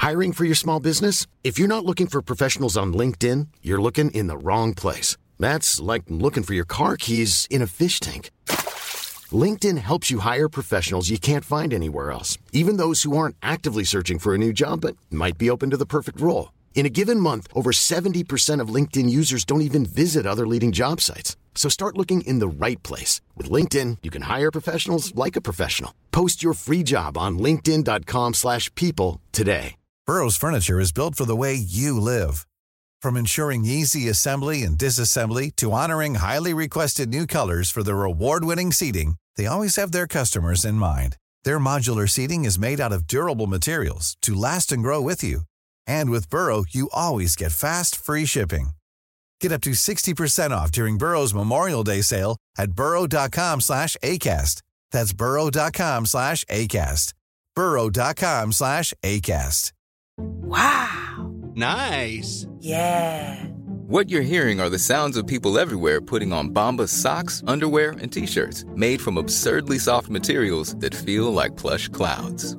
Hiring for your small business? If you're not looking for professionals on LinkedIn, you're looking in the wrong place. That's like looking for your car keys in a fish tank. LinkedIn helps you hire professionals you can't find anywhere else, even those who aren't actively searching for a new job but might be open to the perfect role. In a given month, over 70% of LinkedIn users don't even visit other leading job sites. So start looking in the right place. With LinkedIn, you can hire professionals like a professional. Post your free job on linkedin.com slash people today. Burrow's furniture is built for the way you live. From ensuring easy assembly and disassembly to honoring highly requested new colors for their award-winning seating, they always have their customers in mind. Their modular seating is made out of durable materials to last and grow with you. And with Burrow, you always get fast, free shipping. Get up to 60% off during Burrow's Memorial Day sale at burrow.com slash ACAST. That's burrow.com slash ACAST. burrow.com slash ACAST. Wow. Nice. Yeah. What you're hearing are the sounds of people everywhere putting on Bombas socks, underwear, and t-shirts made from absurdly soft materials that feel like plush clouds.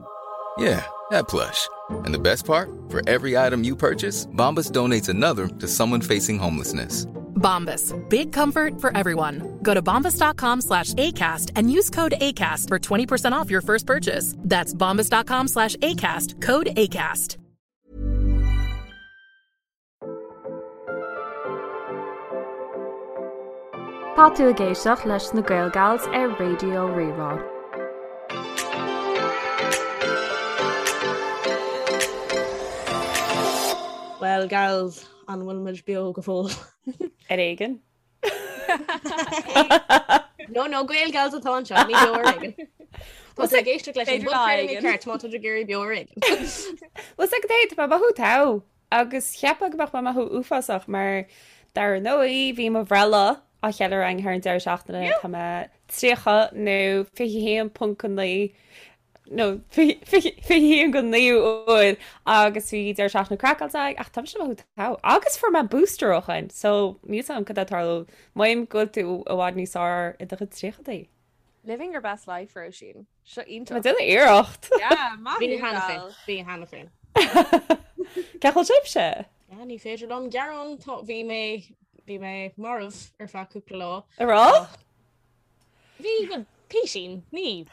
Yeah, that plush. And the best part? For every item you purchase, Bombas donates another to someone facing homelessness. Bombas. Big comfort for everyone. Go to bombas.com slash ACAST and use code ACAST for 20% off your first purchase. That's bombas.com slash ACAST. Code ACAST. Tá tú ag éisteacht leis na Gaelgals ar Raidió Rí-Rá. Well gals, an bhfuil muid beo go fóill? Ar éigean. No, no, Gaelgals atá anseo, ní beo ar éigean. Tá tú ag éisteacht leis an B'fhéidir lá bpodchraoladh éigin. ceart má tá tú ag iarraidh beo ar éigean. Bhuel 's agat é, tá mé ag mothú togha agus cheapfá go mbeadh mé ag mothú uafásach mar dar ndóigh bhí mo bhreithlá á cheiliúradh againn thar an deireadh seachtaine, tá mé 30 nó 21.9 nó 21 go 9 uair agus bhí deireadh seachtaine craiceáilte againn ach tá mise ag mothú togha agus fuair mé booster ó shin so níl 's agam cad é tarlú Mothaím go bhfuil tú i bhfad níos fearr i do chuid tríochadaí. Living your best life, Róisín. Seo iontach. Tá mé ag déanamh iarracht. Yeah, maith Bhí thú, cheana féin, gal. bhí cheana féin. Cén chaoi a bhfuil sibhse? Yeah, ní féidir liom gearán, tá, bhí mé, bhí mé marbh ar feadh cúpla lá. A rá? Bhí go písín, ní.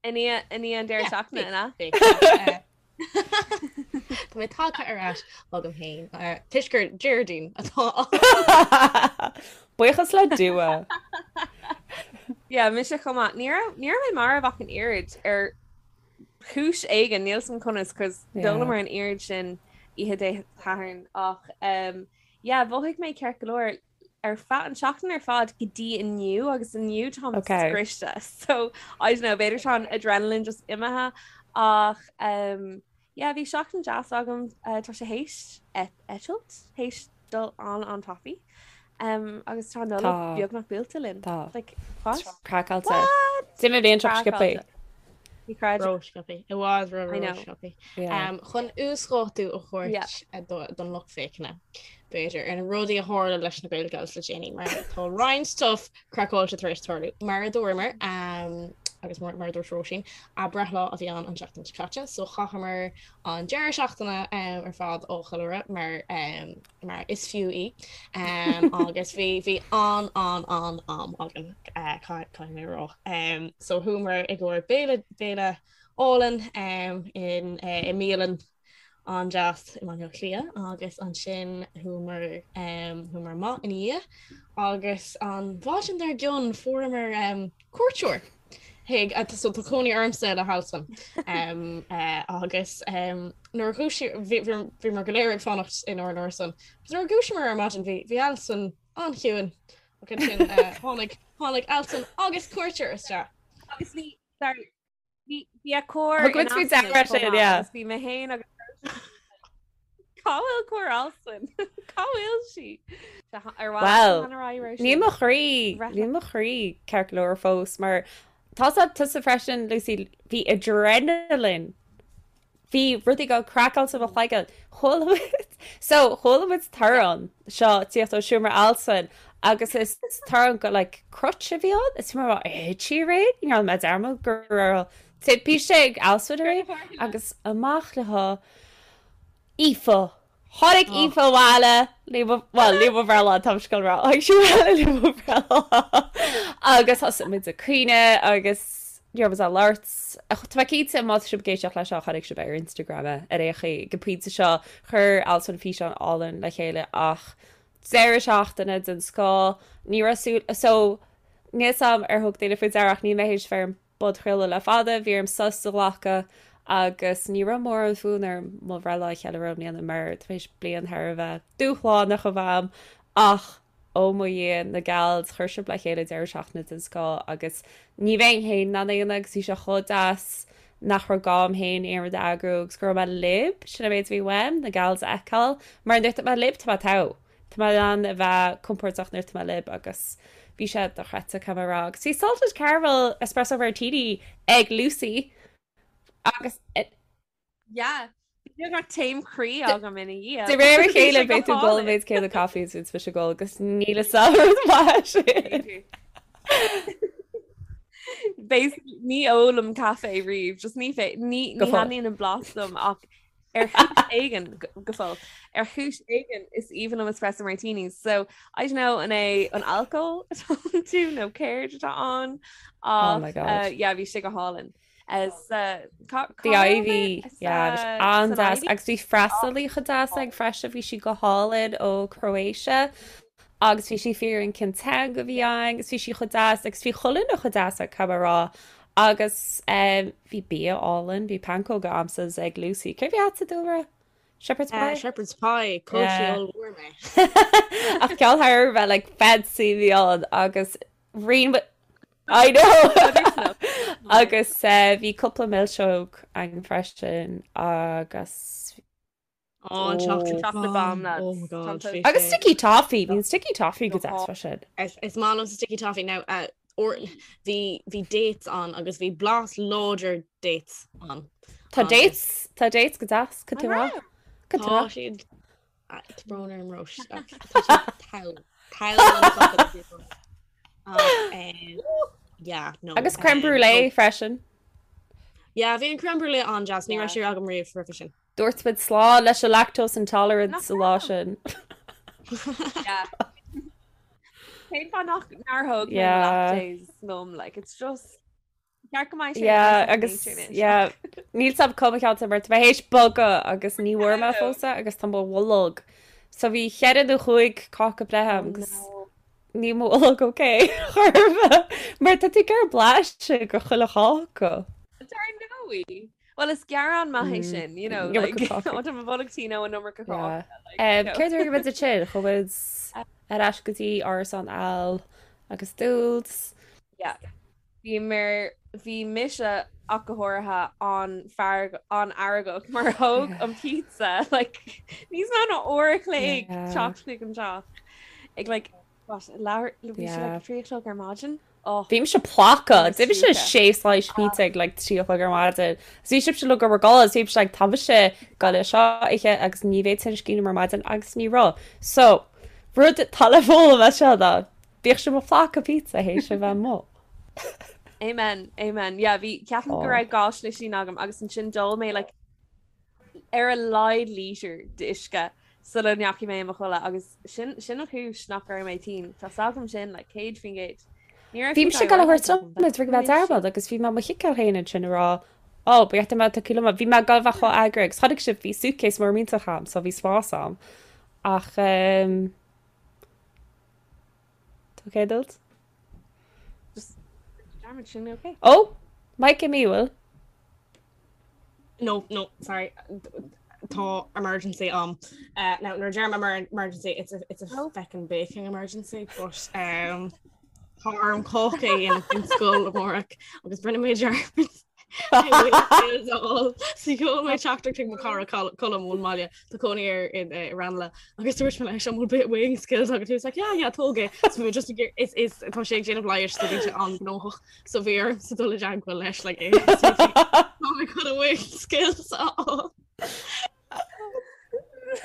I ndiaidh i ndiaidh an deireadh seachtaine, an ea? Bhí. Tá mé tagtha ar ais agam féin, toisc gur Déardaoin atá ann. Buíochas le Dua. Yeah, mise chomh maith. Ní raibh ní raibh mé marbh ach an oiread ar chúis éigin, níl 's agam conas, cos d'ólamar an oiread sin oíche Dé Sathairn ach um, yeah, mhothaigh mé ceart go leor ar feadh an seachtain ar fad go dtí inniu agus inniu táim Okay. scriosta so I don't know b'fhéidir tá an adrenaline just imithe ach um, yeah, bhí seachtain deas agam uh, tá sé théis eitilt théis dul an an-tapaidh um, agus tá Nollaig Tá. beagnach buailte linn Tá. like, what? Craiceáilte. What? D'imigh an bhliain seo sciobtha. Craiceáilte. Ní chreidim. Ró-sciobtha. I bhfad ró I know. ró-sciobtha. Yeah. Um, chun uasdátú a thabhairt Yeah. eh, do- don lucht féachana, b'fhéidir, ar na rudaí a tharla leis na Gaelgals le déanaí, mar tá roinnt stuff craiceáilte tar éis tarlú. Mar a dúramar, um, agus mar, mar a dúirt Róisín, a breithlá a bhí ann an tseachtain seo caite, so chaitheamar an deireadh seachtaine um, ar fad á cheiliúradh mar um, mar is fiú í agus bhí bhí an an an am againn eh, caithfidh mé a rá. So chuamar i gcomhair béile béile álainn in eh, i mbialann an-deas i mBaile Átha Cliath agus ansin chuamar chuamar amach ina dhiaidh agus an mhaidin dár gcionn fuaireamar cuairteoir chuig so tá cónaí ormsa le hAlswyn agus nuair a dhúisigh bhíomar go léir ag fanacht inár n-árasán agus nuair a dhúisíomar ar maidin bhí bhí Alswyn an-chiúin ach ansin tháinig tháinig Alswyn agus cuairteoir isteach. Agus bhí sorry bhí bhí a cór Thug muid faoi deara sin, yeah. Agus bhí mé féin agus Cá bhfuil cór Alswyn? Cá bhfuil sí? Well, níl mo chroí, níl mo chroí ceart go leor fós mar tá tusa freisin, Lucy, bhí adrenaline. Bhí rudaí go craiceáilte mo chloigeann. Chuala muid, so chuala muid torann seo tíocht ó seomra Alswyn agus is torann go like crutch a bhí ann. Is mar thit sí aréir, ní raibh mé dearmad go raibh. Timpiste ag Alswyn aréir agus amach le hAoife. Tháinig Aoife abhaile le mo, bhuel, le mo bhreithlá, tá mise ag rá, tháinig sí abhaile le mo bhreithlá agus thosaigh muid ag caoineadh agus ní raibh muid ag labhairt. Tá mé cinnte má tá sibh ag éisteacht leis seo chonaic sibh ar Instagram é ar aon chaoi. Ag an bpointe seo chuir Alswyn físeán álainn le chéile ach deireadh seachtaine den scoth, ní raibh súil, so níl 's a'm ar thug daoine faoi deara ach níl mé théis bheith ar an bpodchraoladh le fada, bhí orm sos a ghlacadh agus ní raibh mórán fonn orm mo bhreithlá a cheiliúradh i mbliana mar tar éis bliain thar a bheith dúshlánach a bheith a'm ach ó mo Dhia, na gals, chuir sibh le chéile deireadh seachtaine den scoth agus ní bheinn féin in ann é a dhéanamh agus bhí sé chomh deas nach raibh gá a'm féin aon rud a eagrú agus go raibh mé libh, sin an méid a bhí uaim, na gals a fheiceáil mar nuair atá mé libh tá mé togha. Tá mé in ann a bheith compordach nuair atá mé libh agus bhí sé dochreidte caithfidh mé a rá. Agus bhí salted caramel espresso martini ag Lucy agus Yeah. Bhí beagnach taom croí agam ina dhiaidh. De réir a chéile beidh tú ag ól an méid céanna caife is bhíonn mise ag ól agus níl a fhios agam an rud maith sin. Basically ní ólaim caife riamh, just ní fé ní ní thaitníonn an blas liom ach Ar chúis éigin, go fóill, ar chúis éigin is aoibhinn liom espresso martinis. So, I don't know an é an alcól atá iontu nó céard atá ann Oh my ach God. uh, yeah, bhí sé go hálainn. As, uh, cá, The cá raibh Ivy, mé? As, yeah, bhí sé uh, san an-deas. Ivy? Agus bhí freastalaí chomh deas againn freisin, bhí sí go hálainn ó Croatia agus bhí sí ag fiafraí cén teanga a bhí againn agus bhí sí chomh deas agus bhí chuile dhuine chomh deas caithfidh mé a rá. Agus bhí bia álainn, bhí pancóga a'msa ag Lucy. Céard a bhí a'dsa, Dúlra? Shepherd's pie? Shepherd's pie, chaill sí ollmhór mé. Ach ceann thar a bheith like fancy a bhí ann agus rinne I know! Agus bhí cúpla milseog againn freisin agus Oh, an chocolate Chocolate bomb. bomb, lads. Oh my god. Tá bhí Agus sé- sticky toffee, bhí an sticky toffee go deas freisin. Is is maith liom sticky toffee now. Uh, or bhí bhí dates ann agus bhí blas láidir dates ann. Tá Agus dates, tá dates go deas, go An rá. raibh? Go Tá rá. siad ah, tá brón orm Róis. ach Tá siad togha. Togha an chocolate bomb. Ach, um, yeah, no. Agus creme um, brulee no. freisin. Yeah, bhí an creme brulee an-deas, ní Yeah. raibh sé agam riamh roimhe sin. Dúirt muid slán leis an lactose intolerance Nach sa lá sin. Yeah. Cén fáth nach nár thóg mé Yeah. lactase liom, like, it's just ceart go mbeidh sé Yeah, second agus nature anois. yeah, níl 's a'm cá mo cheantar mar tá mé théis bogadh agus ní bhfuair mé fós é agus tá mo bholg. So bhí cheithre nó chúig cáca breithe Oh a'm agus no. níl mo bholg ok chor ar bith mar tá tú ag iarraidh blaiseadh de chuile cháca. Dar ndóigh. Well is gearán maith é sin, you know, like, ó tá mo bholg tinn ó an iomarca cáca. Yeah. Céard a rinne muid ansin? Chuaigh muid ar ais go dtí árasán Al agus Dúls. Yeah. Bhí mar bhí mise ach go háirithe an-fhearg an-fheargach mar thóg an pizza like níos mó ná uair a chloig teacht chuig an teach ag like what leathuair bhí sé like 3 a chlog ar maidin. Oh. Bhí mise ploctha. D'ith mise sé slice pizza ag like 3 a chlog ar maidin. Agus bhí sibhse uilig ag gabháil a chodladh, bhí mise like tá mise ag gabháil é seo a ithe agus ní bheidh tinneas cinn orm ar maidin agus ní raibh. So, rud atá le foghlaim as seo ná bíodh sibh ag plocadh pizza théis a bheith amuigh. Amen, amen. Yeah, bhí ceapaim go raibh dhá slisín agam agus ansin d'ól mé like ar a laghad lítear d'uisce sula ndeachaigh mé i mo chodladh agus sin sin an chúis nach raibh mé tinn. Tá 's agam sin like 100%. Ní raibh Bhí mise ag gabháil a thabhairt liom é ag bheith dearmad agus bhí mé mo chiceáil féin ansin ag rá Ó, ba cheart dom é a thabhairt liom. Bhí mé ag gabháil a bheith chomh eagraithe agus chonaic sibh bhí suitcase mór millteach a'm so bhí spás a'm. Ach ehm Tá ok dult? Just dearmad sin ok. Ó! Mic imithe bhfuil? No, no, sorry. Tá emergency a'm. Uh, now, nuair a deirim emergency, it's a, it's a oh. feckin' baking emergency, but um, tá orm cáca a dhéanamh don scoil amárach agus rinne mé dearmad Sheol mé teachtaireacht chuig mo chara Colm ón mbaile tá cónaí air i Ranelagh agus dúirt mé leis an bhfuil bit weighing scales agat he was like yeah yeah tóg é so bhí just is is tá sé ag déanamh leighis so bhí sé an-ghnóthach So bhí ormsa dul i dteagmháil leis like é Tá mé chun an weighing scales a fháil.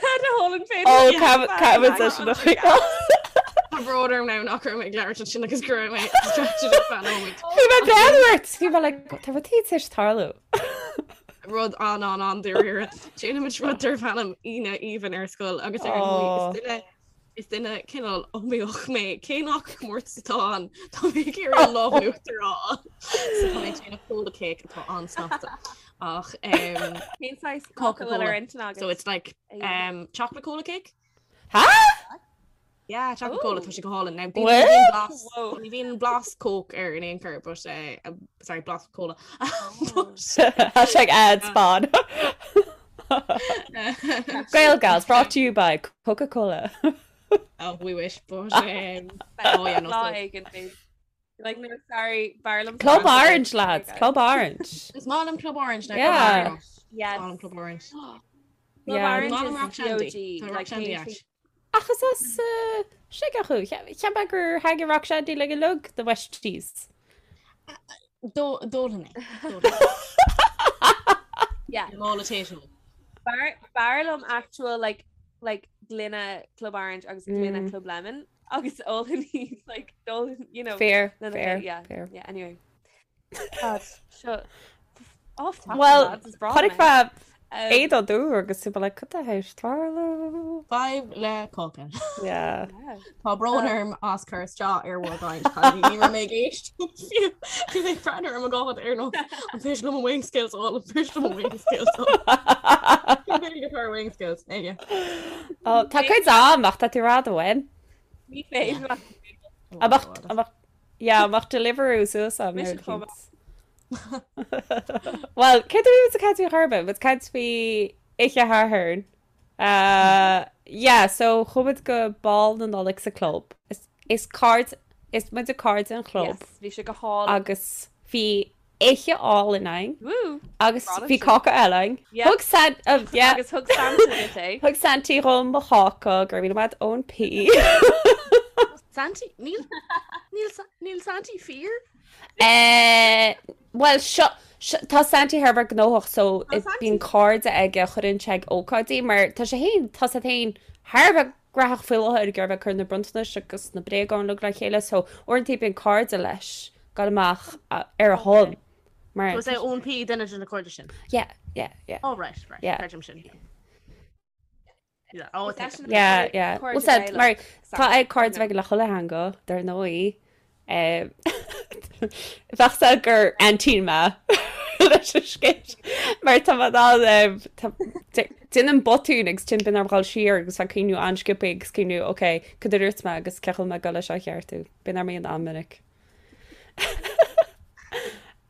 Had a hole in Ó, caithfimid é sin a choinneáil. Tá brón orm now nach raibh mé ag labhairt ansin agus go raibh mé distracted ar feadh nóiméid. Bhí mé ag breathnú ort! Bhí mé like, tá rud éigin tar éis tarlú. Rud an an an dáiríre. Déanaimid rud darb ainm Aoine Aoibhinn ar scoil agus ar ndóigh is duine is duine cineál iomaíoch mé cé nach comórtas atá ann tá mé ag iarraidh an lámh in uachtar a fháil. So tá mé ag déanamh cola cake atá an-snasta. Ach um, Cén saghas cáca a bhfuil ar intinn agat? So it's like um, chocolate cola cake? Ha? Yeah, chocolate cola tá sé go hálainn. Now, bíonn- What? bíonn blas- ní bhíonn blas coke air in aon chor, but uh, um, sorry, blas cola. But, Hashtag ad spon. Gael Gals brought to you by Coca-Cola. Oh, we wish, but um, oh yeah, no, Lá so- éigin, babe. Like, no, sorry, b'fhearr liom Club Fanta. Orange, lads. Club Orange. Is maith liom Club Orange now. Yeah. Club Orange. Yes. Is maith liom Club Orange. Club Yeah. Orange Maith liom is Rock Shandy. the OG. Tá Rock Like, Shandy cén ait. Ach is as uh, Sligeach thú. Cheap mé gur thaitnigh Rock Shandy le go lug the Westies. D'ólfainn é. Yeah. Mála tae. B'fhearr b'fhearr liom actual like like gloine Club Orange agus gloine Mm. Club Lemon agus ólfainn iad like d'ólfainn you know Fair, lena fair, chéile. yeah fair. yeah anyway God seo off topic Well, lads is breá chonaic mé mé um, éadan dúr agus tú like cad tá théis tarlú? Fadhb le cáca. Yeah. yeah. Tá brón orm as cur isteach ar bhur gcaint cailíní. Ní raibh mé ag éisteacht fiú. Bhí mé ag breathnú ar mo ghád ar nós an féidir liom an wing skills a fháil, an féidir liom an wing skills a fháil. Cén Gaeilge atá ar wing skills? Aige. Ó, tá cuid am ach tá tú rá do bhain. Ní féidir leat Oh Amach, God. amach, yeah, amach Deliveroo suas am Mise nuair a chomh chíonn. Well, cé tú bhí caint faoi chorba, but caint faoi Oíche Shathairn. Uh, yeah, so chuaigh muid go Bál na Nollag sa club. Is, is cairde, is muid cairde an chlub. Yes, bhí sé go hálainn. Agus bhí oíche álainn againn. Woo! Agus Bhí bhí cáca eile againn. Yeah. Thug San, uh, yeah. Agus thug Santa duit é. Thug Santy dhom mo cháca, go raibh míle maith Eoin P. Santy? Níl, níl, níl Santy fíor? Eh, Bhuel, seo, seo, tá Santy thar a bheith gnóthach so Tá Santy. bíonn cairde aige a chuireann sé ag ócáidí mar tá sé féin, tá sé féin thar a bheith gnóthach faoi láthair ag iarraidh bheith ag cur na bronntanais agus na bréagáin uilig le chéile so uaireanta bíonn cairde leis ag dul amach ar a shon mar So is é Eoin P duine de na cairde sin? Yeah, yeah, yeah. Oh right, right. Yeah. Creidim sin. Yeah, oh, Is eisean Yeah, cairde yeah. cairde Well said, Gaelach, mar tá Santa, ag cairde you know. bheith le chuile theanga, dar ndóigh. Eh, Bheadh sé gur aintín mé leis an scéal. Mar tá mé in ann, eh, tá- dé- déanaim botún agus ansin bíonn orm dhul siar agus bheith ag cuimhniú an-sciobtha agus cuimhniú, ok, cad a dúirt mé agus cén chaoi a bhfuil mé ag dul leis seo a cheartú. Bíonn orm é an-mhinic.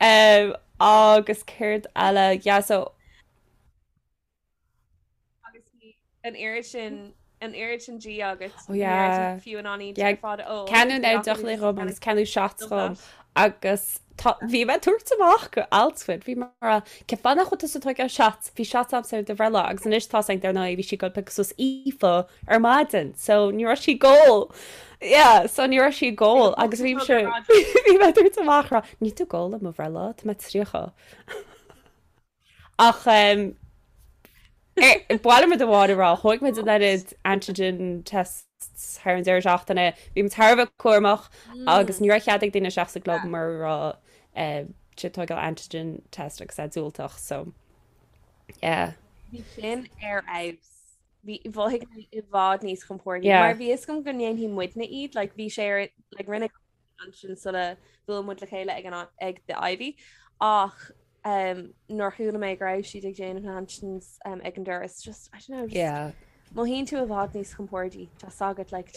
Um, agus céard eile, yeah, so Agus bhí an oiread sin an oiread sin dí agat Oh yeah. fiú in ann Yeah, ar fad ó Ceannú na deochanna dhom agus ceannú shots dhom agus tá bhí mé ag tabhairt amach go alt-squid bhí mar cén fáth nach bhfuil tusa ag tógáil shots bhí shots agamsa ar do bhreithlá agus anois tá ag dar ndóigh bhí sí ag dul piocadh suas Aoife ar maidin so ní raibh sí ag ól yeah so ní raibh sí ag ól agus bhí sé bhí mé ag tabhairt amach rá níl tú ag ól ar mo bhreithlá tá mé 30 Ach ba mhaith liom rud amháin a rá, thóg muid an oiread antigen tests thar an deireadh seachtaine, bhí muid thar a bheith cúramach agus ní raibh cead ag daoine isteach sa gclub mura raibh siad ag tógáil antigen test agus é diúltach, so yeah. Bhí sin ar fheabhas. Bhí mhothaigh mé i bhfad níos compordaí Yeah. mar bhí fhios agam go ndéanfaidh muidne iad, like bhí sé ar like rinne ansin sula bhuail muid le chéile ag an ag The Ivy ach um, nuair chuala mé go raibh siad ag déanamh na antigens um, ag an doras just I don't know just Yeah. mothaíonn tú i bhfad níos compordaí tá agat like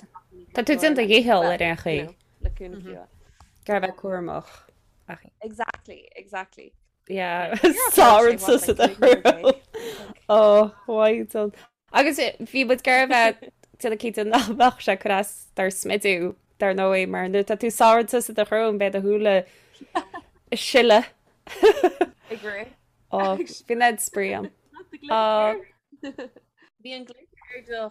Tá tú déanta dhícheall ar aon chaoi. le cúnamh mm Ag iarraidh bheith cúramach. Ach Exactly, exactly. Yeah, You're Sár approaching what, sa like 300 Oh, why don't Agus bhí muid ag iarraidh bheith déanamh cinnte nach mbeadh sé ag cur as dár smidiú, dar ndóigh, mar nuair atá tú sáite sa do shrón beidh do shúile ag sileadh. Ag rith. Ó, bhí an spraoi ann. Ó. Bhí an glitter ar do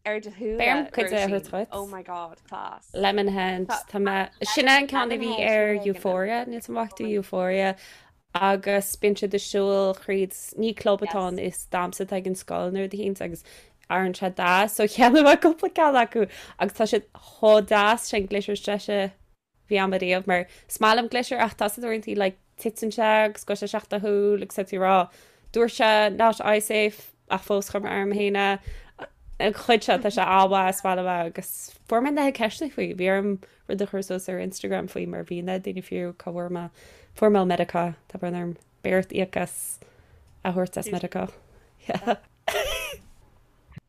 ar do shúile, Beidh orm cuid de a Róisín. thabhairt dhuit. Oh my god, class. Lemonhead, tá mé, sin é an ceann a bhí ar Euphoria, níl 's a'm an bhfaca tú Euphoria, agus bíonn siad ag siúl thríd, ní club atá ann, is damhsa atá ag an scoil nó rud eicínt agus Airíonn sé deas, so cheannaigh mé cúpla ceann acu agus tá siad chomh deas sin glitter is deise a bhí agam ariamh mar is maith liom glitter ach tá sé uaireanta like titeann sé agus gabhann sé isteach do shúil agus tá tú ag rá dúirt sé not eye safe ach fós chuir mé orm féin é. An chuid seo tá sé an-mhaith is maith liom é agus fuair mé na ceisteanna faoi bhí orm rud a chur suas ar Instagram faoi mar bhí na daoine fiú cá bhfuair mé fuair mé ó Meiriceá tá brón orm beidh ort íoc as a thabhairt as Meiriceá. Yeah.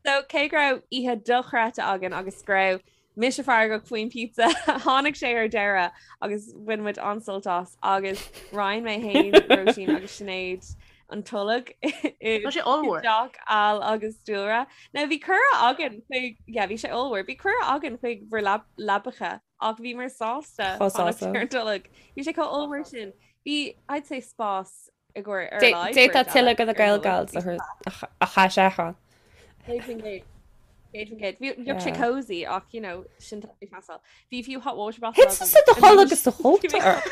So cé go raibh oíche dochreidte againn agus go raibh mise feargach faoin pizza, tháinig sé ar deireadh agus bhain muid an-sult as agus roinn mé féin, Róisín agus Sinéad an tolg i Tá sé ollmhór. dteach Al agus Dúlra. Now bhí cuireadh againn chuig, yeah, bhí sé ollmhór, bhí cuireadh againn chuig bhur leabacha ach bhíomar sásta Chomh fanacht sásta. ar an tolg. Bhí sé chomh ollmhór sin. Bhí, I'd say spás i gcomhair ar a laghad D'fhéadfá beirt tuilleadh eile de na ar an Gael tolg. Gals a chaith sé ann. 100%. 100%. Bhí bheadh sé Yeah. cozy ach you know sin tá ag teastáil. Bhí fiú hot water bottle Thit agam tusa do chodladh anois. agus do chóta ort.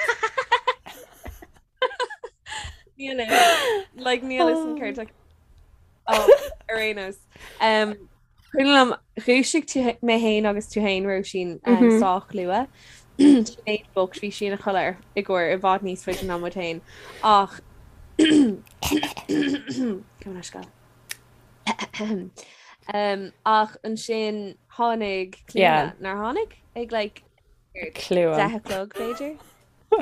Níl fhios. Like níl fhios an céard tá- Oh, ar aon nós. Um, Cuimhin liom, dhúisigh tú mé féin agus tú féin, Róisín, sách luath. Sinéad bocht, bhí sí ina chodladh ar i gcomhair i bhfad níos faide ná muid féin. Ach Gabh mo leithscéal. Ach ansin tháinig Clíona, nár tháinig? Ag like Clíona. 10 a chlog, b'fhéidir? I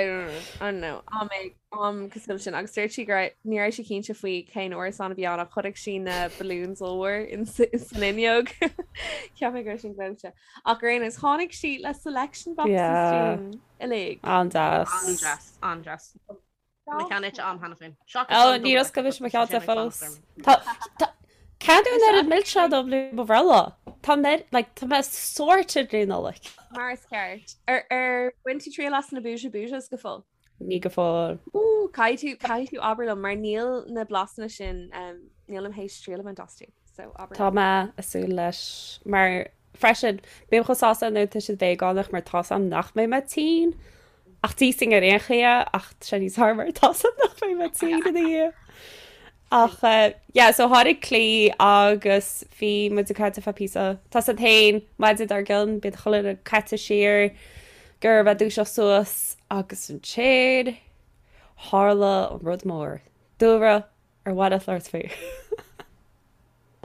don't know, I don't know. Am ag am cosúil sin agus dúirt sí go raibh ní raibh sí cinnte faoi cén árasán a bhí ann ach chonaic sí na balloons ollmhór in san fhuinneog. Cheap mé go raibh sin gleoite. Ach ar aon nós tháinig sí le selection boxes Yeah. dúinn uilig. An-deas. An-deas, an-deas. Mo cheann ite a'm cheana féin. Seachas Ó, an níor double oscail mise mo decker, cheann tá sé fós. ag fanacht orm. Tá, tá, Ceann an oiread milseán dom le mo bhreithlá. Tá mé, like, tá mé sorted le Nollaig. Mar is ceart. Ar, ar bhain tú triail as na Booja Boojas go fóill? Ní go fóill. Ooh, caithfidh tú, caithfidh tú abair liom mar níl na blasanna sin, um, nílim théis triail a bhaint astu. So abair Tá liom. mé ag súil leis mar Freisin, bím chomh sásta nuair atá siad veigeánach mar tá's a'm nach mbeidh mé tinn. Ach d'íosfainn ar aon chaoi é ach tá sé níos fearr mar tá's a'm nach mbeidh mé tinn ina dhiaidh. Ach yeah, so tháinig Clí agus bhí muid ag caint ar feadh píosa. Tá's a'd féin, maidin dár gcionn, bíonn chuile dhuine caite siar gur bheith dúiseacht suas agus ansin tharla an rud mór. Dúlra, ar mhaith leat labhairt faoi?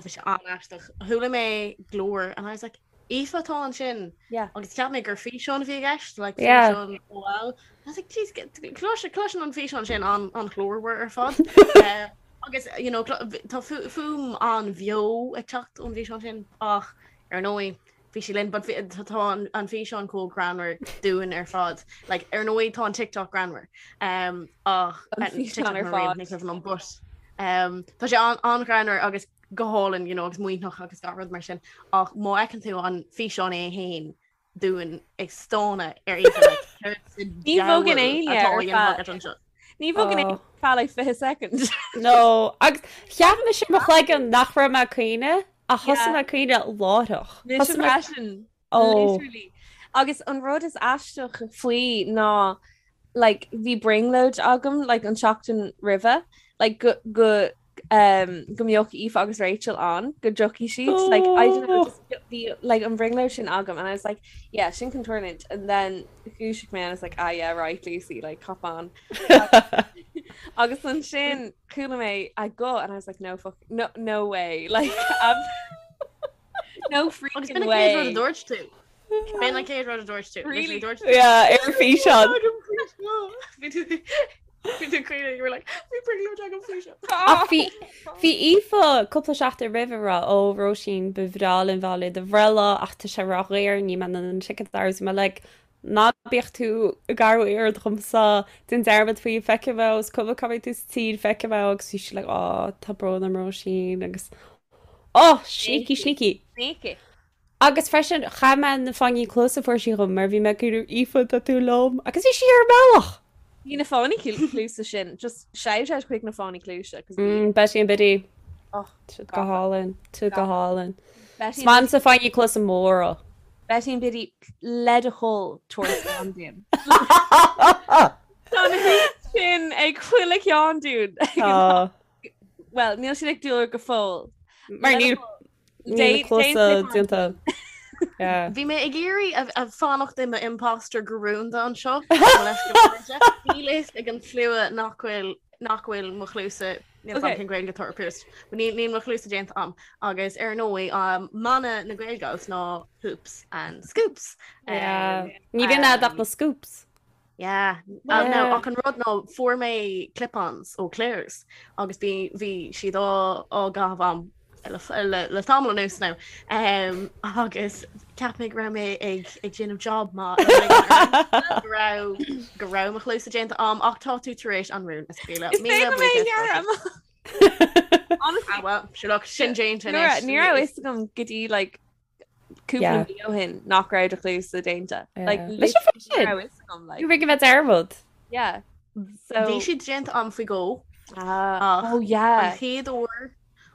Bhí sé an-aisteach. Chuala mé glór and I was like, Aoife atá ansin. Yeah. Agus cheap mé gur físeán a bhí i gceist, like Yeah. físeán OL. I was like, jeez, clois cloiseann an físeán sin an an ghlórmhar ar fad. Eh, agus you know, clo- tá fu- fuaim an-bheo ag teacht ón bhfíseán sin ach ar ndóigh bhí sí linn, but bhí- tá tá an an físeán chomh greannmhar dúinn ar fad. Like, ar ndóigh tá an TikTok greannmhar. Um, ach An eh, físeán TikTok ar mar riamh, fad. ní cuimhin liom, but um, tá sé an- an-ghreannmhar agus go hálainn, you know, agus maoithneach agus gach rud mar sin. Ach má fheiceann tú an físeán é féin dúinn ag stánadh ar Aoife, like, céard sa Ní bhogann diabhal éinne atá á ar dhéanamh feadh- agat anseo? Ní bhogann éinne Oh. ar feadh like 20 second. No, agus cheap mise i mo chloigeann nach raibh mé ag caoineadh ach thosaigh Yeah. mé ag caoineadh láithreach. Mise Thosaigh mé freisin. Oh. Literally. Agus an rud is aisteach faoi ná like bhí brionglóid agam like an tseachtain roimhe like go go um, go mbeadh Aoife agus Rachel ann go dtiocfaidh siad like I don't know Oh. just bhí like an bhrionglóid sin agam and I was like yeah sin chun tarlúint and then dhúisigh mé and I was like ah yeah right Lucy like cop on agus ansin chuala mé a guth and I was like no fuck no no way like I've no Agus freaking b'in an chéad rud a way dúirt tú. B'in an chéad rud a dúirt tú. Really? Literally dúirt tú. Yeah, ar físeán. Bhí tú bhí tú caoineadh, you were like, bhí brionglóid agam faoi seo. Ach bhí bhí Aoife cúpla seachtain roimhe ag rá ó Róisín ba bhreá linn bheith le do bhreithlá ach tá sé ródhaor níl mé in ann an ticket a fháil. Bhí mé like ná bíodh tú ag athrú aird dhomsa déan dearmad faoi feicfidh mé is cuma cá mbeidh tú sa tír feicfidh mé agus bhí sí like ó tá brón orm Róisín agus oh sneaky sneaky. Sneaky. Agus freisin chaith mé na fáinní cluaise a fuair sí dhom mar bhí mé ag iarraidh Aoife tá tú liom agus bhí sí ar an mbealach! Bhí na fáinní cluaise sin just shout out chuig na fáinní cluaise 'cause bhí Mm, Betty and Biddy. oh, Siad go hálainn, siad go hálainn. Betty Is maith liomsa fáinní cluaise móra. Betty and Biddy le do thoil tabhair slán dúinn. Tá na hoops sin ag chuile cheann dúinn. Tá. Well, níl siad ag dúil go fóill. Mar níl. Níl na cluasa déanta. Yeah. Bhí mé ag iarraidh a fanacht i mo imposter go rúnda anseo. Níl fhios ag an slua nach bhfuil nach bhfuil mo chluasa níl okay. cén Gaeilge atá ar pierced. Níl níl mo chluasa déanta a'm agus ar ndóigh um, mana na Gaelgals ná hoops and scoops. Yeah. Um, Ní bhíonn a'd ach na scoops. Yeah. Uh, no, ach an rud ná fuair mé clip-ons ó Claire's agus bhí bhí siad á á gcaitheamh a'm le, le, le tamall anuas now. Um, agus cheap mé go raibh mé ag ag déanamh job maith go raibh go raibh mo chluasa déanta a'm ach tá tú tar éis an rún a scaoileadh. Is féidir mé dhearmad. Honestly, Ah, well, sure look, sin déanta anois. Ní raibh fhios agam go dtí like cúpla mí ó shin nach raibh do chluasa déanta. Like, Leis an fáth sin. raibh fhios agam, like. Bhí go bheith dearmad. Yeah. So Bhí siad déanta a'm faoi dhó. Ah, Ach oh yeah. An chéad uair,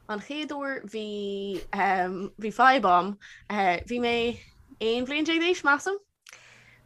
an chéad uair bhí um, bhí fadhb a'm. Uh, bhí mé 11 bhliain d'aois, measaim,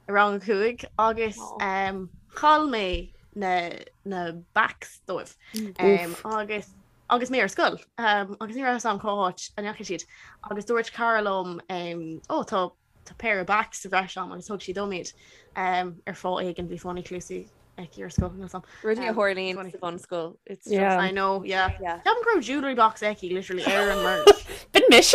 i rang a 5 agus um, chaill mé na, na backs dóibh. Um, agus agus mé ar scoil um, agus ní raibh fhios a'm cá háit a ndeachaigh siad agus dúirt cara liom um, ó tá tá péire backs sa bhreis a'm agus thug sí dom iad um, ar fáth éigin bhí fáinní cluasaí aici ar scoil níl 'fhios a'm. Rudaí a Um, tharlaíonn funny. sa bhunscoil. It's just Yeah. I know, yeah. Yeah. Ceapaim go raibh jewellery box aici literally ar an merch. B'in mise!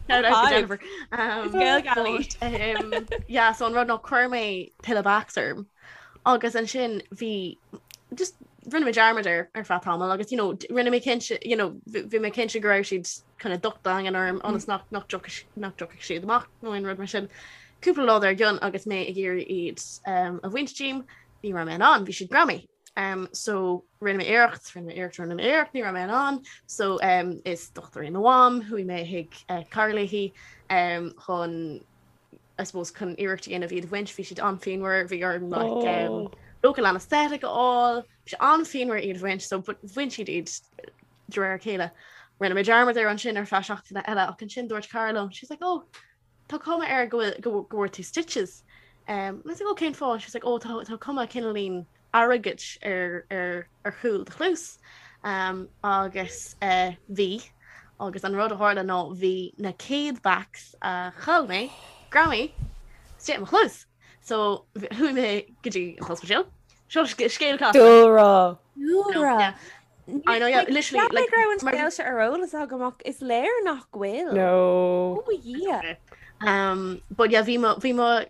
Shout out to Five. Jennifer. Um, Gael but, um, yeah, so an rud ná chuir mé tuilleadh backs orm. Agus ansin bhí just rinne mé dearmad air ar feadh tamaill agus you know rinne mé cinnte you know bhí mé cinnte go raibh siad kind of docht daingean orm ionas nach nach dtiocfadh nach dtiocfadh siad amach nó aon rud mar sin. Cúpla lá dár gcionn agus mé ag iarraidh iad um, a bhaint díom, ní raibh mé in ann, bhí siad greamaithe. Um, so rinne mé iarracht, rinne mé iarracht, rinne mé iarracht, ní raibh mé in ann. So um, is dochtúir í mo mham, chuaigh mé chuig uh, cara léi um, chun I suppose chun iarracht a dhéanamh iad a bhaint, bhí siad an-phianmhar, bhí orm like um, Oh. local anaesthetic a fháil, bhí sé an-phianmhar iad a bhaint, so but bhain siad iad de réir a chéile. Rinne mé dearmad air ansin ar feadh seachtaine eile ach ansin dúirt cara liom, she's like, oh, tá cuma air go bhfuil go go bhfuair tú stitches. Um, and I was like, oh, cén fáth? She's like, oh, tá tá cuma cineáilín airgid ar ar ar chúl do chluas. Um, agus uh, bhí agus an rud a tharla ná bhí na céad backs a chaill mé greamaithe istigh i mo chluas. So chuaigh mé go dtí an t-ospidéal. Seo scéal casta. Dúlra. Dúlra. Yeah. I know, yeah, literally, like, like, raibh an mar- scéal seo ar eolas agam ach is léir nach bhfuil. No. Oh yeah. Um, but yeah, bhí mo, bhí mo,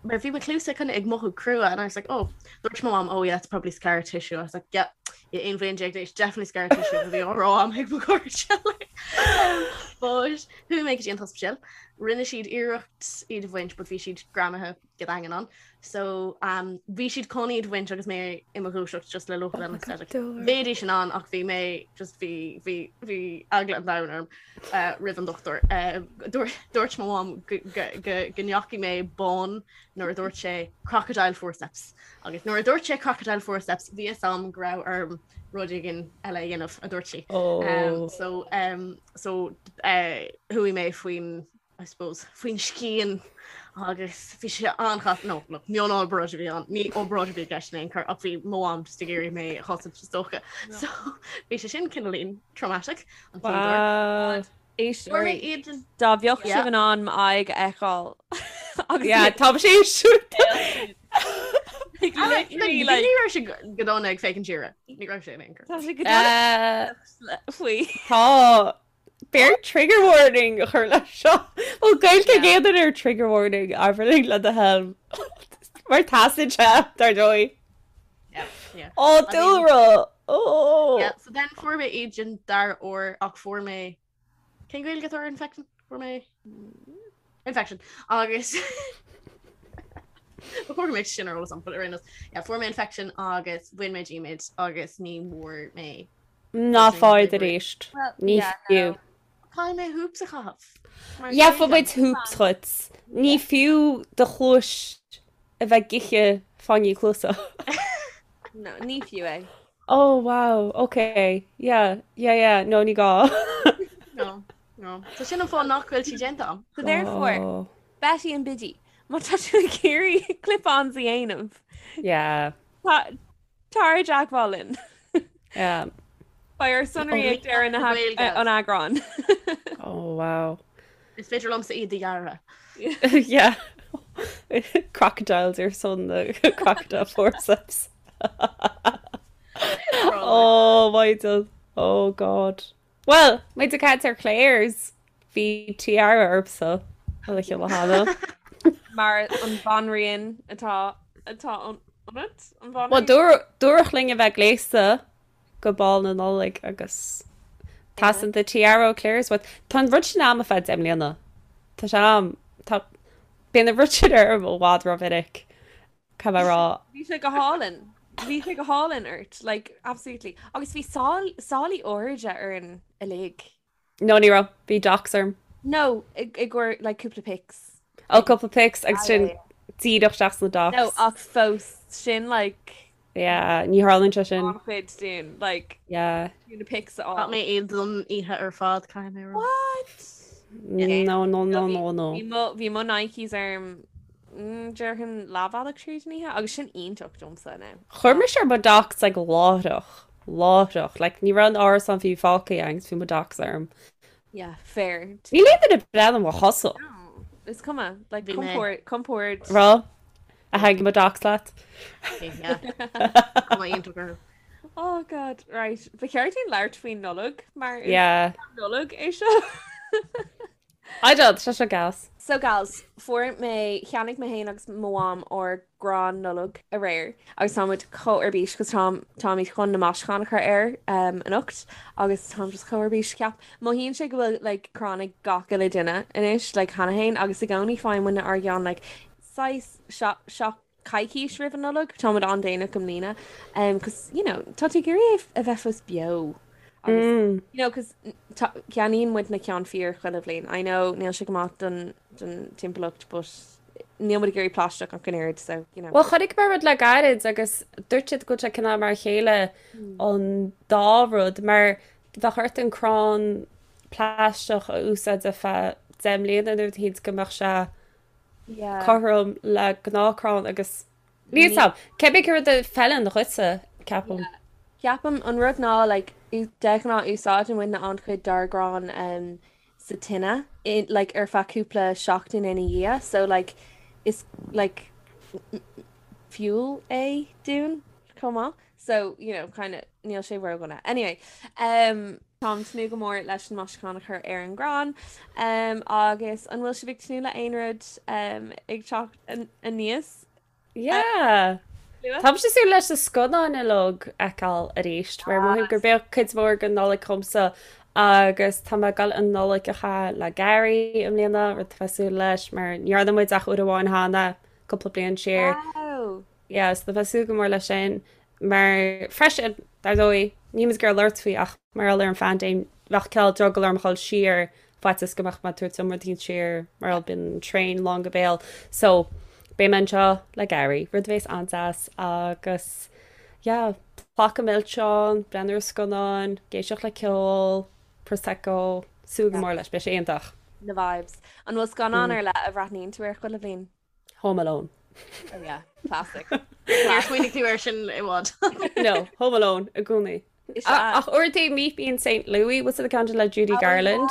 mar bhí mo chluasa kind of ag mothú crua and I was like, oh, dúirt mo mom, oh yeah, it's probably scar tissue. I was like, yeah, yeah, 11 bhliain d'aois, definitely scar tissue a bhí á rá a'm ag mo chairde. Um, but chuaigh mé go dtí an t-ospidéal, rinne siad iarracht iad a bhaint, but bhí siad greamaithe go daingean ann. So um, bhí siad chun iad a bhaint agus mé i mo dhúiseacht just le local Oh my God, anaesthetic. Dúlra. Bheidís in ann ach bhí mé just bhí bhí bhí eagla an domhain orm uh, roimh an dochtúir. Uh, dúirt dúirt mo mham go go go go ndeachaigh mé bán nuair a dúirt sé crocodile forceps. Agus nuair a dúirt sé crocodile forceps bhí fhios a'm go raibh orm rud éigin eile a dhéanamh a dúirt sí. Oh. Um, so um, so uh, chuaigh mé faoin I suppose, faoin scian agus bhí sé an-chasta, no, look, mionobráid a bhí ann, ní obráid a bhí i gceist in aon chor ach bhí mo mham just ag iarraidh mé a chosaint is dócha. So bhí sé sin cineáilín traumatic an chéad uair. Wow. Fuair mé Éisteoirí, iad an- dá mbeadh Yeah. sibh in ann m'aghaidh a fheiceáil agus Yeah, tá sé siúd. like, Ah, like, literally, like, ní raibh sé go dona ag féachaint siar. Ní raibh sé in aon chor. tá sé go dona faoi. Tá B'fhearr trigger warning a chur leis seo. Bhfuil Gaeilge ag aon duine ar trigger warning Aisling le do thoil. Mar teastaíonn sé, dar ndóigh. Yeah, yeah. Ó, dúlra! Ó! Yeah, so then fuair mé iad an dara huair ach fuair mé cén Gaeilge atá ar infection? Fuair mé infection agus Ba chóir go mbeadh sin ar eolas agam, but ar aon nós, yeah, fuair mé infection agus bhain mé díom iad agus ní bhfuair mé Ná faigh arís. Ní fiú. Caithfidh mé hoops a chaitheamh. Gheobhaidh muid hoops dhuit. Ní fiú do chluais a bheith ag ithe fáinní cluasa. No, ní fiú é. Oh wow, ok, yeah, yeah, yeah, no ní gá. No, no. So sin an fáth nach bhfuil siad déanta agam. So therefore, Oh. Betty and Biddy, má tá tú ag iarraidh clip-ons a dhéanamh, Yeah, tá Tar i dteagmháil linn. Yeah. Beidh ár sonraí ag deireadh na an eagráin. Oh wow. Is féidir liomsa iad a dhearadh. Yeah. Crocodiles ar son na crocodile forceps. Oh my God. Oh God. Well, muid ag caint ar Claire's bhí tiara ormsa an oíche cheana. Mar an bhanríon atá atá ionat an Well, bhanríon? dúradh linn a bheith gléasta go Bál na Nollag agus teastaíonn the tiara ó Claire's uait. Tá an rud sin a'm ar feadh 10 mbliana. Tá sé a'm. Tá bíonn an rud sin orm i bhfad rómhinic. Caithfidh mé a rá. Bhí sé go hálainn. Bhí sé go hálainn ort, like, absolutely. Agus bhí sálaí airde orainn uilig. No, ní raibh. Bhí docs orm. No, i gcomhair, like, cúpla pics. Oh, cúpla pics agus sin díreach isteach sna docs. No, ach fós, sin, like... Yeah, ní tharlaíonn sé sin. An-chuid dúinn, like, Yeah. na pics a fháil. Chaith mé iad don oíche ar fad, caithfidh mé a rá. What? No, no, no, no, no. Bhí mo, bhí mo Nikes orm, mm, déarfainn leathbhealach tríd an oíche, agus sin iontach domsa now. Chuir mise ar mo docs like láithreach, láithreach, like ní raibh an árasán fiú fágtha agus bhí mo docs orm. Yeah, fair. Níl aon duine ag breathnú ar mo chosa. No, is cuma, like Bhí mé. compord, compord. Raibh? A thaitnigh mo docs leat? Yeah. Cuma iontach orthu. Oh God, right. Ba cheart dúinn labhairt faoin Nollaig mar is Yeah. Nollaig é seo. I don't, tá sé gas. So gals, fuair mé, cheannaigh mé féin agus mo mham ár gcrann Nollag aréir agus tá muid chomh ar bís cos táim, táimid chun na maisiúcháin a chur air um, anocht agus táim just chomh ar bís ceap. Mothaíonn sé go bhfuil like, crann ag gach uile duine anois like, cheana féin agus i gcónaí faigheann muidne ár gceann like, saghas seach coicís roimh an Nollaig, táimid an-déanach i mbliana, um, cos, you know, tá tú ag iarraidh é a bheith fós beo. Agus, mm. you know, cos ceannaíonn muid na ceann fíor chuile bhliain. I know níl sé go maith don, don timpeallacht, but níl muid ag iarraidh plaisteach ach an oiread, so, you know. Well, chonaic mé rud le gairid agus dúirt siad go bhfuil sé cineál mar a chéile mm. an dá rud, mar bheadh ort an crann plaisteach a úsáid ar feadh 10 mbliana nó rud éicint go mbeadh sé cothrom le gnáthchrann agus níl 's a'm, cibé cén rud a fheileann dhuitse, ceapaim. Ceapaim an rud ná like de ghnáth úsáideann muidne an-chuid dár gcrann um, sa tine in, like ar feadh cúpla seachtain ina dhiaidh so like is like fuel é dúinn chomh maith so you know kind of níl sé ródhona. Anyway, um, Táim tnúth go mór leis an maisiúchán a chur ar an gcrann um, agus an bhfuil sibh ag tnúth le aon rud um, ag teacht aníos? Yeah. Táimse ag súil leis na scannáin uilig a fheiceáil arís, mar mothaím gurb é cuid mhór den Nollaig dhomsa agus tá mé ag dul an Nollaig a chaitheamh le Gary i mbliana, rud atá mé ag súil leis, mar ní dhearna muid ach uair amháin cheana, cúpla bliain siar. Wow! Yeah, so tá mé ag súil go mór leis sin. Mar freisin, dar ndóigh, níl muid ag iarraidh labhairt faoi ach mar gheall ar an phaindéim, bheadh cineál drogall orm a dhul siar faitíos go mbeadh mé ag tabhairt an rud éicint siar mar gheall bíonn an traein lán go béal. So, beidh mé anseo le Gary, rud a bhéas an-deas agus yeah, pláca milseán, breathnú ar scannáin, ag éisteacht le ceol, Prosecco, súil go mór leis, beidh sé iontach. Na vibes. An bhfuil scannán ar leith a bhreathnaíonn tú air chuile bhliain? Home Alone. Oh yeah, classic. Níor smaoinigh tú air sin i bhfad. No, Home Alone i gcónaí. Ach uaireanta Meet Me in St. Louis, what's the ceann sin le Judy oh, Garland?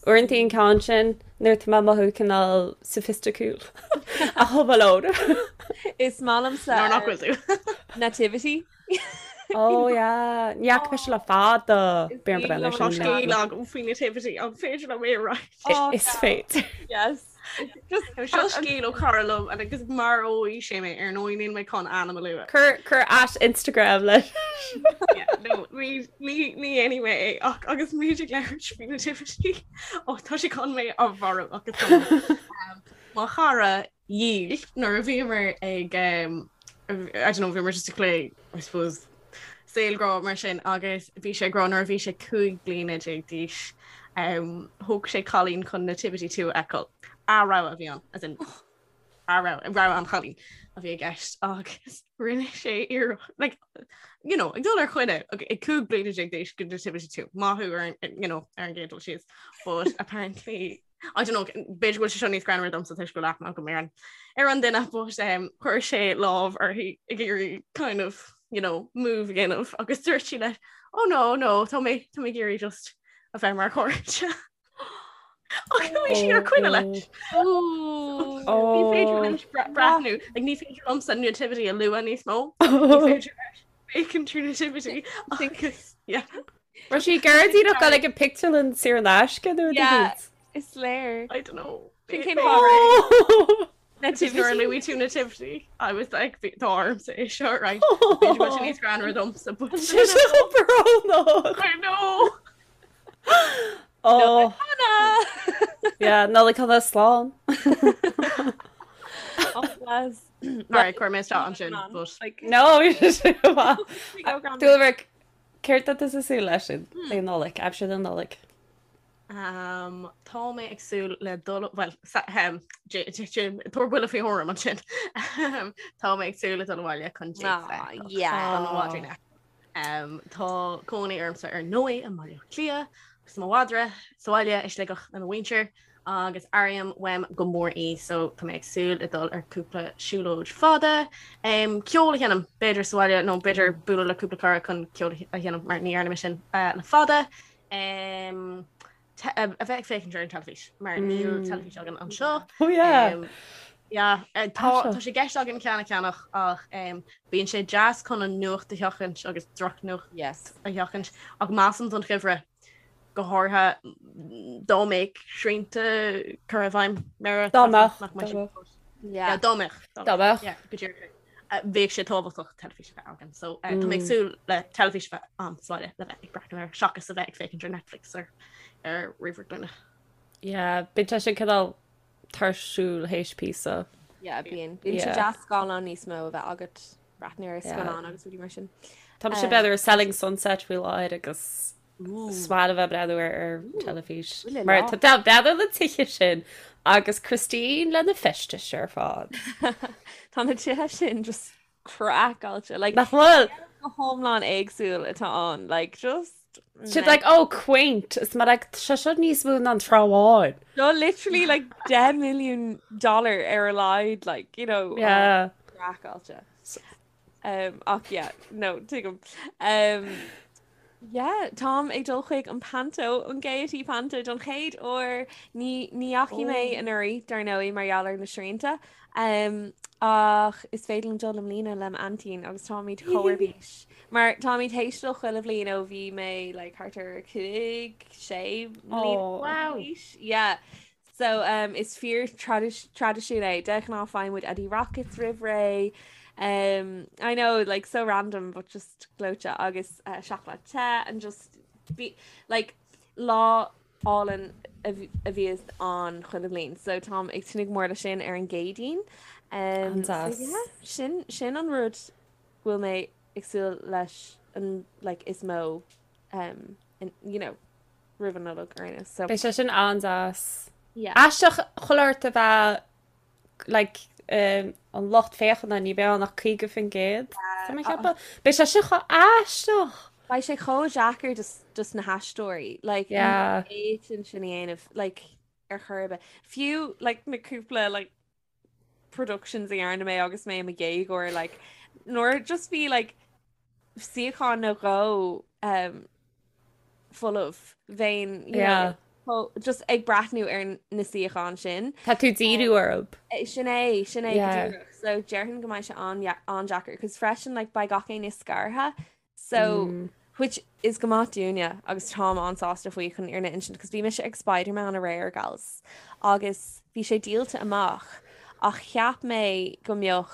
Uaireanta an ceann sin nuair atá mé ag mothú cineál soifisticiúil. Ach Home Alone. Is maith liomsa Nuair nach bhfuil tú. Nativity. Oh yeah, ní fhaca mise le fada. B'fhéidir breathnú air Tá sin. scéal agam faoi Nativity, an féidir liom é a roinnt? Is féidir. Yes. Seo scéal ó chara liom agus maróidh sé mé ar ndóigh níl mé chun ainm a lua. Cuir cuir at Instagram leis. No, ní ní ní dhéanfaidh mé é ach agus muid ag labhairt faoi Nativity ó tá sé chun mé a mharú agus tá mo chara dhíl nuair a bhíomar ag um, I don't know, bhíomar just ag plé I suppose saol grá mar sin agus bhí sé ag rá nuair a bhí sé 15 bliana d'aois um, thóg sé cailín chun Nativity 2 a fheiceáil. A rogha a bhí ann, as in a rogha, rogha an chailín a bhí i gceist agus rinne sé iarracht like, you know, ag dul ar choinne ag 15 bliana d'aois go Nativity 2 maith thú ar an, you know, ar an gcéad dul síos but apparently I don't know, b'fhéidir go bhfuil sé seo níos greannmhaire domsa toisc go bhfuil aithne agam ar an ar an duine but um, chuir sé lámh uirthi ag iarraidh kind of, you know, move a dhéanamh agus dúirt sí leis. Oh no, no, tá mé tá mé ag iarraidh just a bheith mar chairde. Ach chuaigh sí ar coinne leis. Ní féidir liom breathnú, like, ní féidir liomsa nativity a lua níos mó. Ní féidir leis féachaint ar nativity agus yeah. Raibh sí ag iarraidh díreach dul ag an pictiúrlann saor in aisce nó Yeah, is léir. I don't know. Sin cén fáth raibh. Nativity. Nuair a luaigh tú nativity, I was like, tá ormsa é seo, right? B'fhéidir go bhfuil sé níos greannmhar domsa, but Sé seo chomh brónach. I know. Oh. Yeah, Nollaig shona slán. Oh, bless. Alright, chuir mé isteach ansin, but No, Dúlra, céard tá tusa ag súil leis sin le Nollaig, aimsir na Nollag. Um, tá mé ag súil le dul well tabhair buille faoi thuairim ansin. Tá mé ag súil le dul abhaile chun yeah. Um, tá cónaí ormsa ar ndóigh i mBaile Átha Cliath agus mo mhadra sa bhaile i Sligeach le mo mhuintir agus airím uaim go mór í so tá mé ag súil le dul ar cúpla siúlóid fada. Um, ceol a sheinm b'fhéidir sa bhaile nó b'fhéidir bualadh le cúpla cara chun ceol a sheinm mar ní dhearna mé sin uh, le fada. Um, a bheith ag féachaint ar an teilifís mar níl teilifís againn anseo. Oh yeah. Um, yeah, eh, tá tá sé i gceist againn ceann a cheannach ach um, bíonn sé deas chun an nuacht a sheachaint agus drochnuacht yes. a sheachaint ach measaim don gheimhreadh go háirithe dá mbeadh srianta curtha i bhfeidhm mar Dá mbeadh, nach mbeadh dá mbeadh. Yeah. Dá mbeadh. Dá mbeadh. Yeah, go díreach. Bheadh sé tábhachtach teilifís a bheith againn. So uh, tá mé ag súil le teilifís a bheith ann sa bhaile le bheith ag breathnú air seachas a bheith ag féachaint ar Netflix ar ar ríomhaire glúine. Yeah, bíonn sé sin cineál tuirsiúil théis píosa. Yeah, bíonn. Bíonn sé Yeah. deas scáileán níos mó a bheith agat breathnú ar scannán agus rudaí mar sin. Tá mise b'fhéidir Selling Sunset faoi láthair agus Is maith liom a bheith ag breathnú ar ar teilifís. Mar tá tá breathnú na tithe sin agus Christine lena feistis ar fad. Tá na tithe sin just craiceáilte. Like, Nach bhfuil? go hiomlán éagsúil atá ann. Like, just... Siad like, oh, quaint. Is mar like, sé seo níos mó ná an Trá Bháin. No, literally like 10 million dollar ar a laghad, like, you know, Yeah. craiceáilte. Um, ach yeah, no, tuigim. Um, yeah, táim ag dul chuig an Panto, an Gaiety Panto don chéad uair. Ní, ní dheachaigh mé oh. anuraidh dar ndóigh mar gheall ar na srianta. Um, ach is féidir liom dul i mbliana le m'aintín agus táimid chomh ar bís. Mar táimid théis dul chuile bhliain ó bhí mé like, thart ar 5, 6 mbliana. Oh. Wow. Yeah. So um, is fíor traidisiún é. De ghnáth faigheann muid Eddie Rockets roimh ré. Um, I know, like, so random, but just gleoite agus uh, seacláid te and just be, like, lá álainn a bhíos ann chuile bhliain. So táim ag tnúth go mór le sin ar an gCéadaoin. Um, so An-deas. yeah, sin, sin an rud go bhfuil mé ag súil leis an, like, is mó, um, in, you know, roimh an Nollaig ar aon nós. So. Beidh sé sin an-deas. Yeah. Aisteach chuile shórt a bheith like um, an lucht féachana ní bheidh ann ach 50%. Tá mé ag ceapadh. Beidh sé sin chomh aisteach. Beidh sé chomh deacair dos, dos na haisteoirí. Like, Yeah. ní fhéadfainn sin a dhéanamh, like, ar chor ar bith. Fiú, like, na cúpla, like, productions a dhearna mé agus mé i mo dhéagóir, like, nuair just bhí, like, suíochán nó dhó um, folamh bheinn you Yeah. know, just ag breathnú ar na suíocháin sin. Tá tú díriú orthu. Eh, Sin é, sin é go Yeah. díreach. So déarfainn go mbeidh sé an-deacair, cos freisin like, beidh gach éinne scartha. So Mm. which is go maith dúinne agus táim an-sásta faoi chun an fhírinne a insint, cos bhí mise ag Spider-Man aréir gals agus bhí sé díolta amach ach cheap mé go mbeadh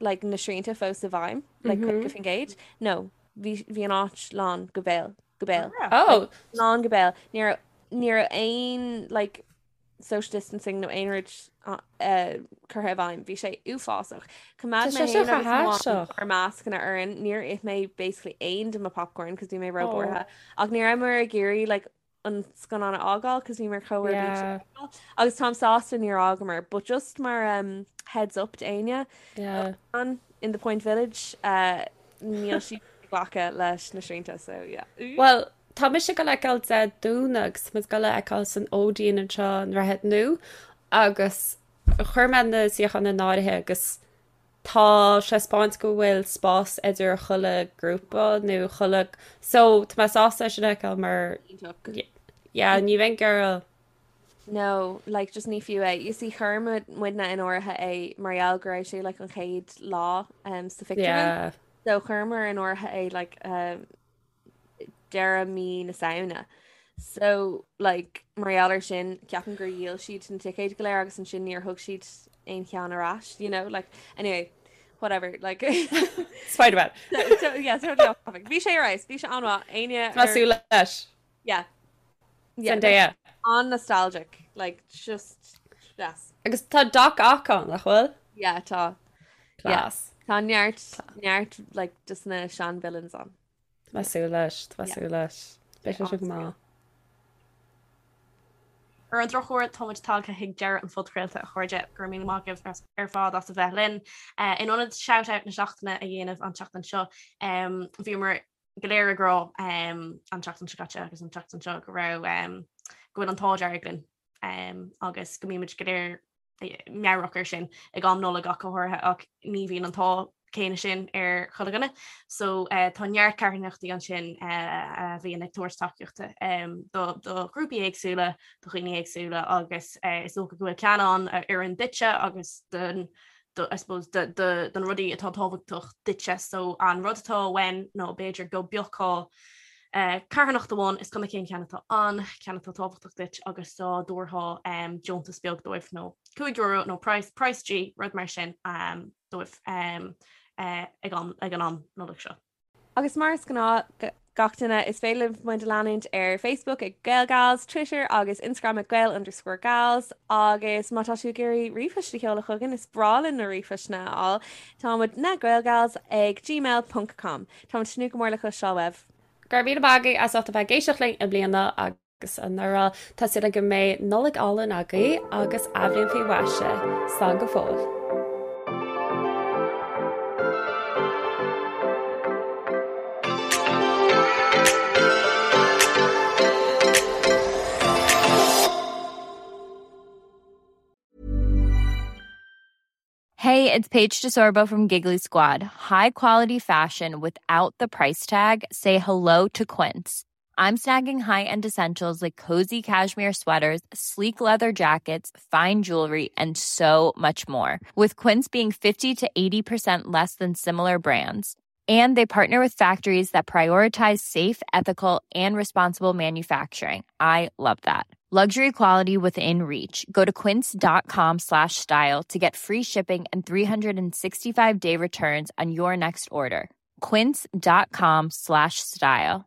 like na srianta fós i bhfeidhm, like 50%. No, bhí bhí an áit lán go béal, go béal. Oh, Lán go béal. Ní raibh ní raibh aon like social distancing nó aon rud uh, curtha i bhfeidhm. Bhí sé uafásach. Choimeád Tá mé sé seo féin agus chomh mo haisteach. ár mascanna orainn. Níor ith mé basically aon de mo popcorn cos bhí mé Oh. róbhuartha. Ach ní rabhamar ag iarraidh like an scannán a fhágáil cos bhíomar chomh ar bís. Yeah. Agus táim sásta níor fhágamar, but just mar um, heads up d'éinne Yeah. an in the Point Village, uh, níl siad ag glacadh leis na srianta, so yeah. Well, tá mise ag dul a fheiceáil Dé Domhnaigh agus tá muid ag dul a fheiceáil san Odeon anseo i nDroichead Nua agus chuir mé na suíocháin in áirithe agus. Tá sé ag 'spáint go bhfuil spás idir chuile grúpa nó chuile so tá mé sásta é sin a fheiceáil mar yeah ní bheinn ag iarraidh No, like just ní fiú é. You see chuir muidne in áirithe é mar gheall go raibh sé like an chéad lá um, sa phictiúrlann. Yeah. So chuireamar in áirithe é like um, deireadh mí na Samhna. So like mar gheall ar sin ceapaim gur dhíol siad na ticéid go léir agus ansin níor thug siad aon cheann ar ais, you know, like anyway, whatever, like Spider-Man. so, so, yeah, totally off topic. Bhí sé ar fheabhas, bhí sé an-mhaith, éinne Tá súil leis. Yeah. Yeah, Zendaya. An-nostalgic, like just yes. Agus tá Doc Ock ann, nach bhfuil? Yeah, tá. Class. Yeah. Tá neart neart like just na sean villains ann. Tá mé ag súil leis, tá mé ag súil leis. Beidh sé sin go maith. Ar an drochuair, táimid tagtha chuig deireadh an phodchraolta, a chairde. Go raibh míle maith agaibh ar fad as a bheith linn. In ionad shout-out na seachtaine a dhéanamh an tseachtain seo, bhíomar go léir ag rá an tseachtain seo caite agus an tseachtain seo go raibh go bhfuil an t-ádh dearg linn agus go mbímid go léir meabhrach air sin ag am Nollag ach go háirithe ach ní bhíonn an t-ádh céanna sin ar chuile dhuine. So tá neart carthanachtaí ansin a bhíonn ag tabhairt tacaíochta do ghrúpaí éagsúla, do dhaoine éagsúla agus is dócha go bhfuil ceann ann a oireann duitse agus don do, I suppose, do, do, do na rudaí atá tábhachtach duitse. So an rud atá uainn ná b'fhéidir go bpiocfá eh, carthanacht amháin, is cuma cén ceann atá ann, ceann atá tábhachtach duit agus dá dtabharfá um, deontas beag dóibh nó €5 nó price, price G, rud mar sin um, dóibh um, eh, ag, am, ag an am Nollag seo. Agus mar is gnáth, gach duine, is féidir libh muid a leanúint ar Facebook ag GaelGals, Twitter agus Instagram ag Gael underscore Gals agus má tá tú ag iarraidh ríomhphost a sheoladh chugainn, is breá linn na ríomhphostanna a fháil, tá muid na Gaelgals ag gmail ponc com. Táimid ag tnúth go mór le cloisteáil uaibh. Go raibh míle maith agaibh as ucht a bheith ag éisteacht linn i mbliana agus. agus anuraidh. Tá súil agam go mbeidh Nollaig álainn agaibh agus athbhliain faoi mhaise. Slán go fóill. Hey, it's Paige DeSorbo from Giggly Squad. High quality fashion without the price tag. Say hello to Quince. I'm snagging high-end essentials like cozy cashmere sweaters, sleek leather jackets, fine jewelry, and so much more. With Quince being 50 to 80% less than similar brands. And they partner with factories that prioritize safe, ethical, and responsible manufacturing. I love that. Luxury quality within reach. Go to quince.com slash style to get free shipping and 365 day returns on your next order. Quince.com slash style.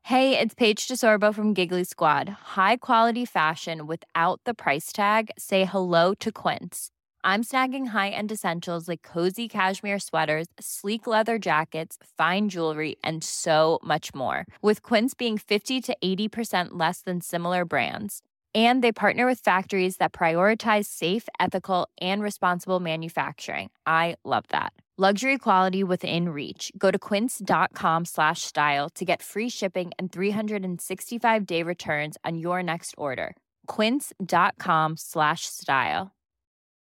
Hey, it's Paige DeSorbo from Giggly Squad. High quality fashion without the price tag. Say hello to Quince. I'm snagging high-end essentials like cozy cashmere sweaters, sleek leather jackets, fine jewelry, and so much more. With Quince being 50 to 80% less than similar brands. And they partner with factories that prioritize safe, ethical, and responsible manufacturing. I love that. Luxury quality within reach. Go to quince.com slash style to get free shipping and 365 day returns on your next order. Quince.com slash style.